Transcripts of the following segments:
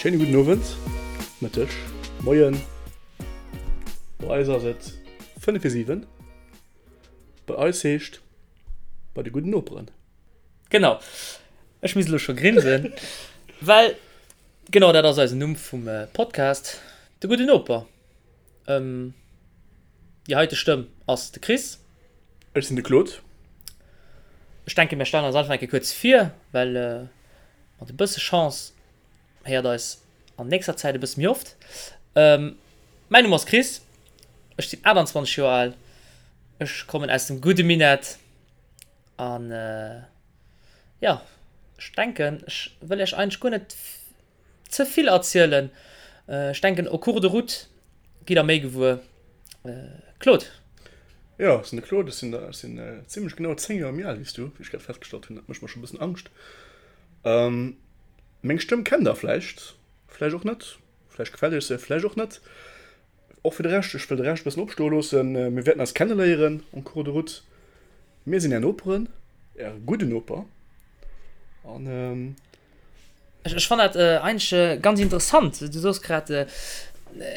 Schéine gudden Owend, Mëtteg, Moien. Bei eis ass et 5 vir 7. Bei eis heescht bei de gudden Noperen. Genau. Ech misst elo scho grinsen, well genau dat ass eisen Numm vum Podcast, De gudden Noper. Déi heite Stëmm ass de Chris. Ech sinn de Claude. Ech denken, mir stellen eis einfach eng Kéier kuerz vir, well mat e bësse Chance héiert eis an nächster Zäit e bësse méi oft. Mäin Numm ass Chris, ech sinn 28 Joer al, ech kommen aus dem gudde Minett an jo, ech denken, ech wëll iech eigentlech guer net ze vill erzielen. Ech denken au cours de route gitt der méi gewuer. Claude. Jo, ech sinn de Claude, ech sinn ech sinn zimlech genau 10 Joer méi al wéi s du, wéi ech grad festgestallt hunn. Dat mécht mer scho e bëssen Angscht. Meng Stëmm kennt der vläicht, vläicht och net, vläicht gefält iech se, vläicht och net. Och fir de Rescht, ech wëll de Rescht e bëssen opstoe loossen. Mir wäerten eis kenneléieren en cours de route. Mir sinn är Noperen, är gudde Noper an. Ech fannen dat eigentlech ganz interessant. Du soos grad,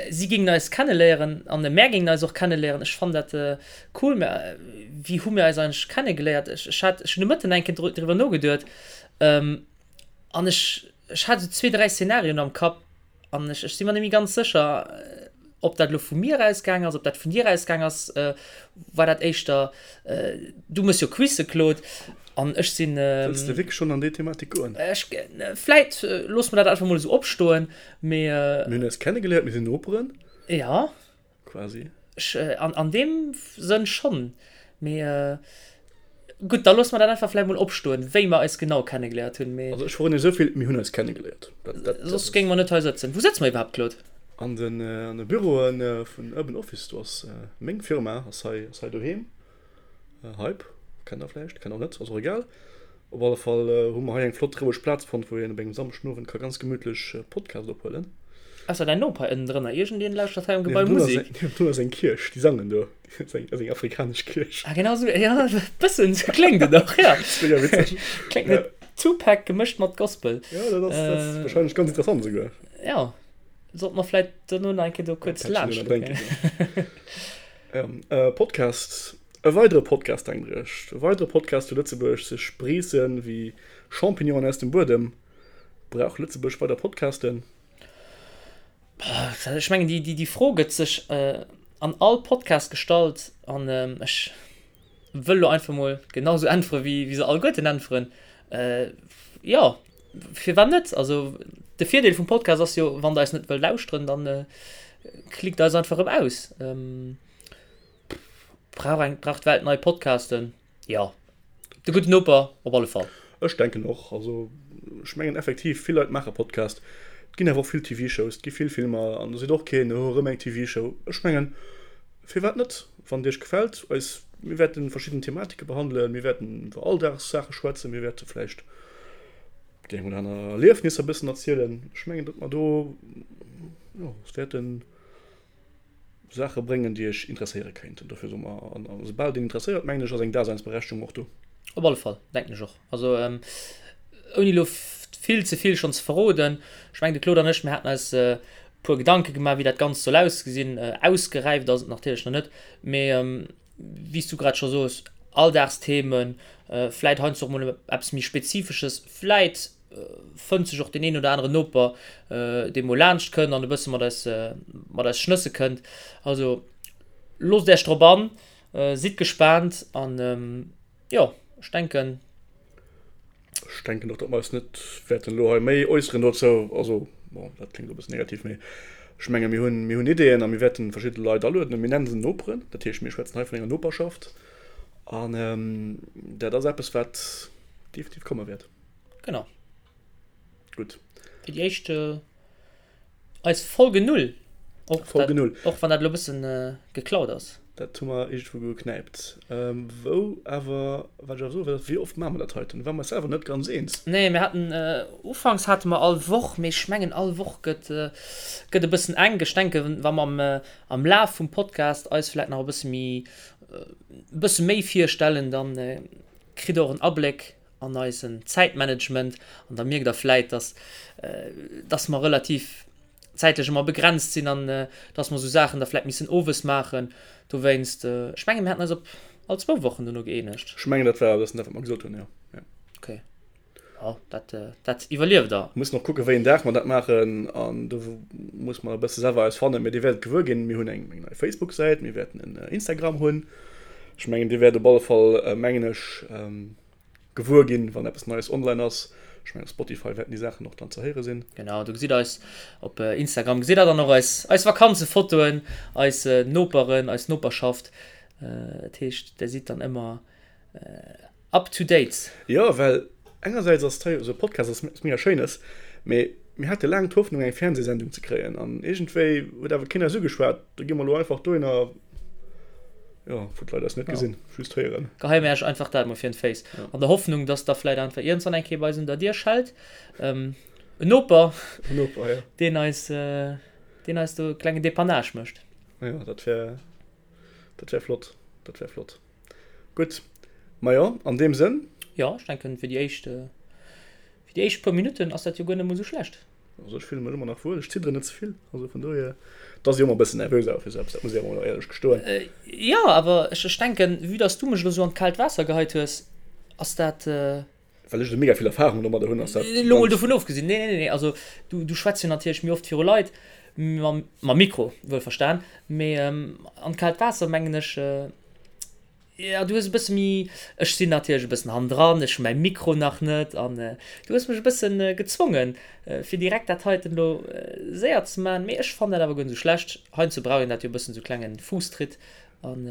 si géingen eis kenneléieren an mär géingen eis och kenneléieren. Ech fannen dat cool. Mä wéi hu mir eis eigentlech kennegeléiert? Ech hat, ech hunn de Mëtten eng Kéier driwwer nogeduet an ech, ech hat esou zwee, dräi Szenarioen am Kapp. An ech, ech si mer net méi ganz sécher, ob dat elo vu mir ausgaang ass, ob dat vun dir ausgaang ass. War dat éischter, du méchs jo Quizze, Claude, an ech sinn. Wëlls de wierklech schonn an déi Thematik goen? Ech, vläit loosse mer dat einfach mol esou opstoen, mee. Mir hunn eis kennegeléiert, mir sinn Noperen. Jo. Quasi. Ech, an, an deem Sënn schonn. Mee gutt, da loosse mer dat einfach vläicht mol opstoen, wéi mer eis genau kennegeléiert hunn. Mee. Also ech verroden iech esou vill, Mir hunn eis kennegeléiert. Dat, dat, dat Soss géinge mer net hei sëtzen. Wou sëtze mer iwwerhaapt, Claude? An den, an de Büroe vun Urban Office. Do ass meng Firma, ass hei, ass hei doheem. Hype, kennt der vläicht, kennt och net, ass och egal. Op alle Fall hu mer hei eng flott roueg Plaz fonnt, wou een op engem Samschdenowend ka ganz gemütlech Podcast ophuelen. Ausser däin Noper ënnendrënner, iergendeen lauschtert hei am Gebai Musek. Niewendrun ass eng Kierch, déi sangen do. Dat ass eng afrikanesch Kierch. Ah genau esou, jo e bëssen esou kléngt et och, jo. Dat ass mega witzeg. Kléngt no Tupac gemëscht mat Gospel. Jo, dat ass, dat ass warscheinlech ganz interessant esouguer. Jo, sollte mer vläit dono nach eng Kéier do kuerz laanscht kucken. Jo, Podcast. E weidere Podcast, denkt der Iech. E weidere Podcast zu Lëtzebuerg, sech spreessen wéi Champignonen aus dem Buedem. Brauch Lëtzebuerg weider Podcasten? Ech mengen, déi Fro gëtt sech an all Podcast gestallt an ech wëll elo einfach mol genau sou äntwere wéi se alleguerten äntweren, Jo, firwat net? Also de Virdeel vum Podcast ass jo, wann der eis net wëllt lauschteren, dann klickt eis einfach erëm aus. Brauch eng, brauch d'Welt nei Podcasten? Jo. De gudden Noper op alle Fall. Ech denken och. Also ech mengen effektiv, vill Leit maache Podcast. Et ginn awer och vill TV-Shows, et gi vill Filmer an do seet och keen, oh erëm eng TV-Show. Ech mengen, firwat net? Wann et iech gefält, eis, mir wäerten verschidden Thematike behandelen, mir wäerten iwwer Alldagssaache schwätzen, mir wäerte vläicht déi eng oder aner Erliefnisser e bëssen erzielen. Ech mengen, datt mer do, jo, es wäerten. Saache bréngen, déi iech interesséiere kéinten. Dofir soe mer, an esoubal et een interesséiert, mengen ech, ass eng Daseinsberechtigung och do. Op alle Fall, denken ech och. Also, ouni elo vill ze vill schonn ze verroden, ech mengen, de Claude an ech, mir haten eis e puer Gedanke gemaach, wéi dat Ganzt soll ausgesinn. Ausgeräift ass et natierlech nach net, mee wéi s du grad scho soos, Alldagsthemen, vläit heiansdo och mol eppes méi Spezifesches, vläit fënnt sech och deen een oder aneren Noper, dee mol laanscht kënnt an e bësse mat eis, mat eis schnësse kënnt. Also loosst Iech drop an, sidd gespaant an jo, ech denken. Ech denken och, datt mer eis net wäerten elo hei méi äusseren dozou. Also bon, dat kléngt elo e bëssen negativ, mee ech menge mir hunn, mir hunn Ideeën a mir wäerten verschidde Leit alueden. Mir nennen se Noperen, dat heescht mir schwätzen hei vun enger Noperschaft an dat ass eppes, wat definitiv komme wäert. Genau. Gutt. Fir déi éischt äh, eis Folge 0. Och, Folge dat, 0. Och wann dat elo bëssen äh, geklaut ass. Dat hu mer iergendwou geknäipt. Ähm, wou awer, wat ech awer soe wëll, wéi oft maache mer dat heiten? Do ware mer eis selwer net ganz eens. Nee, mir haten, äh, ufanks hate mer all Woch, mee ech mengen all Woch gëtt, äh, gëtt e bëssen enk. Ech denken, wa mer am, äh, am Laf vum Podcast eis vläit nach e bësse méi, e bësse méi virstellen, dann äh, kritt der och en Abléck. an eisen Zäitmanagement an da mierkt der vläit, dass, dass mer relativ zäitlech ëmmer begrenzt sinn an dass mer esou Saachen da vläit missen owes maachen. Dowéinst, ech mengen, mir haten eis op all zwou Wochen dono gëeenegt. Ech mengen, dat war e bëssen dat, wat mer gesot hunn, jo. Jo. Okay. Jo, dat, dat iwwerlieft Der. Mir mussen och kucken, wéi een Dag mer dat maachen an do muss mer e bësse selwer eis fannen. Mee Dir wäert et gewuer ginn. Mir hunn eng nei Facebook-Säit, mir wäerten en Instagram hunn. Ech mengen, Dir wäert op alle Fall, mengen ech, gewuer ginn, wann eppes Neies online ass. Ech mengen op Spotify wäerten déi Saachen och dann ze héiere sinn. Genau, do gesitt eis op Instagram, gesitt der dann och eis, eis Vakanzefotoen, eis Noperen, eis Noperschaft. Dat heescht, der sidd dann ëmmer up to date. Jo, well engersäits ass hei esou e Podcast ass mega schéines, mee mir hate laang d'Hoffnung eng Fernsehsendung ze kréien an iergendwéi huet awer keen eis ugeschwat. Do gi mer elo einfach dohinner. Jo, wou d'Leit eis net gesinn, just héieren. Geheie mir iech einfach dat mol virun d'Féiss. An der Hoffnung, dass da vläit einfach iergendwann eng Kéier bei eis un der Dier schellt. En Noper. En Noper, jo. Deen eis, deen eis do e klengen Depannage mécht. Jo, dat wär, dat wär flott. Dat wär flott. Gutt. Majo, an deem Sënn. Jo, ech denken, fir déi éischt, fir déi éischt puer Minutten ass dat jo guer net mol esou schlecht. Also ech fillen mech ëmmer nach wuel, ech zidderen net ze vill, also vun dohier, et ass jo ëmmer e bëssen nervös awer fir esou eppes, dat muss ech awer mol éierlech gestoen. Jo, awer ech ech denken, vue dass du mech elo sou an d'kaalt Waasser geheit hues, ass dat. Well ech esou mega vill Erfahrung domadder hunn, ass dat. Elo mol dovun ofgesinn, nee, nee, nee, also du du schwätz jo natierlech méi oft viru Leit, mam mam Mikro wuelverstan, mee an d'kaalt Waasser mengen ech, Jo, du hues e bësse méi, ech sinn natierlech e bëssen hannendran, ech hu mäi Mikro nach net an du hues mech e bëssen gezwongen, fir direkt dat heiten elo séier ze maachen. Mee ech fannen dat awer guer net esou schlecht. Heiansdo brauch een dat jo e bëssen, esou klenge Fuusstritt an.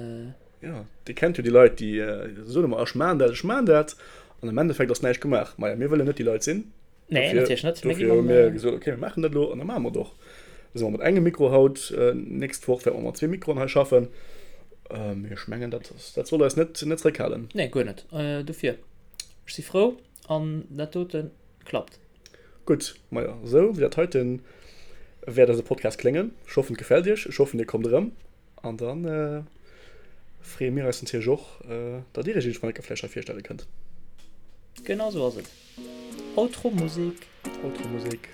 Jo, dir kennt jo déi Leit, déi soen ëmmer, ech maachen dat, ech maachen dat an am Endeffekt ass näischt gemaach. Maja, mir wëllen net déi Leit sinn. Nee, natierlech net. Dofir hu mir gesot, okay, mir maachen dat elo an da maache mer et och. Da si mer mat engem Mikro haut, nächst Woch wäerte mer mat zwee Mikroen hei schaffen. Mee ech mengen, dat, dat soll eis net, net zeréckhalen. Nee, guer net. Dofir, ech si frou an dat dote klappt. Gutt, majo, esou wéi dat heiten wäert eise Podcast kléngen. Ech hoffen, et gefält iech. Ech hoffen, dir kommt erëm. An da freeë mir eis natierlech och, datt Dir Iech iergendwann eng Kéier vläicht hei virstelle kënnt. Genau esou ass et. Outro Musek. Outro Musek.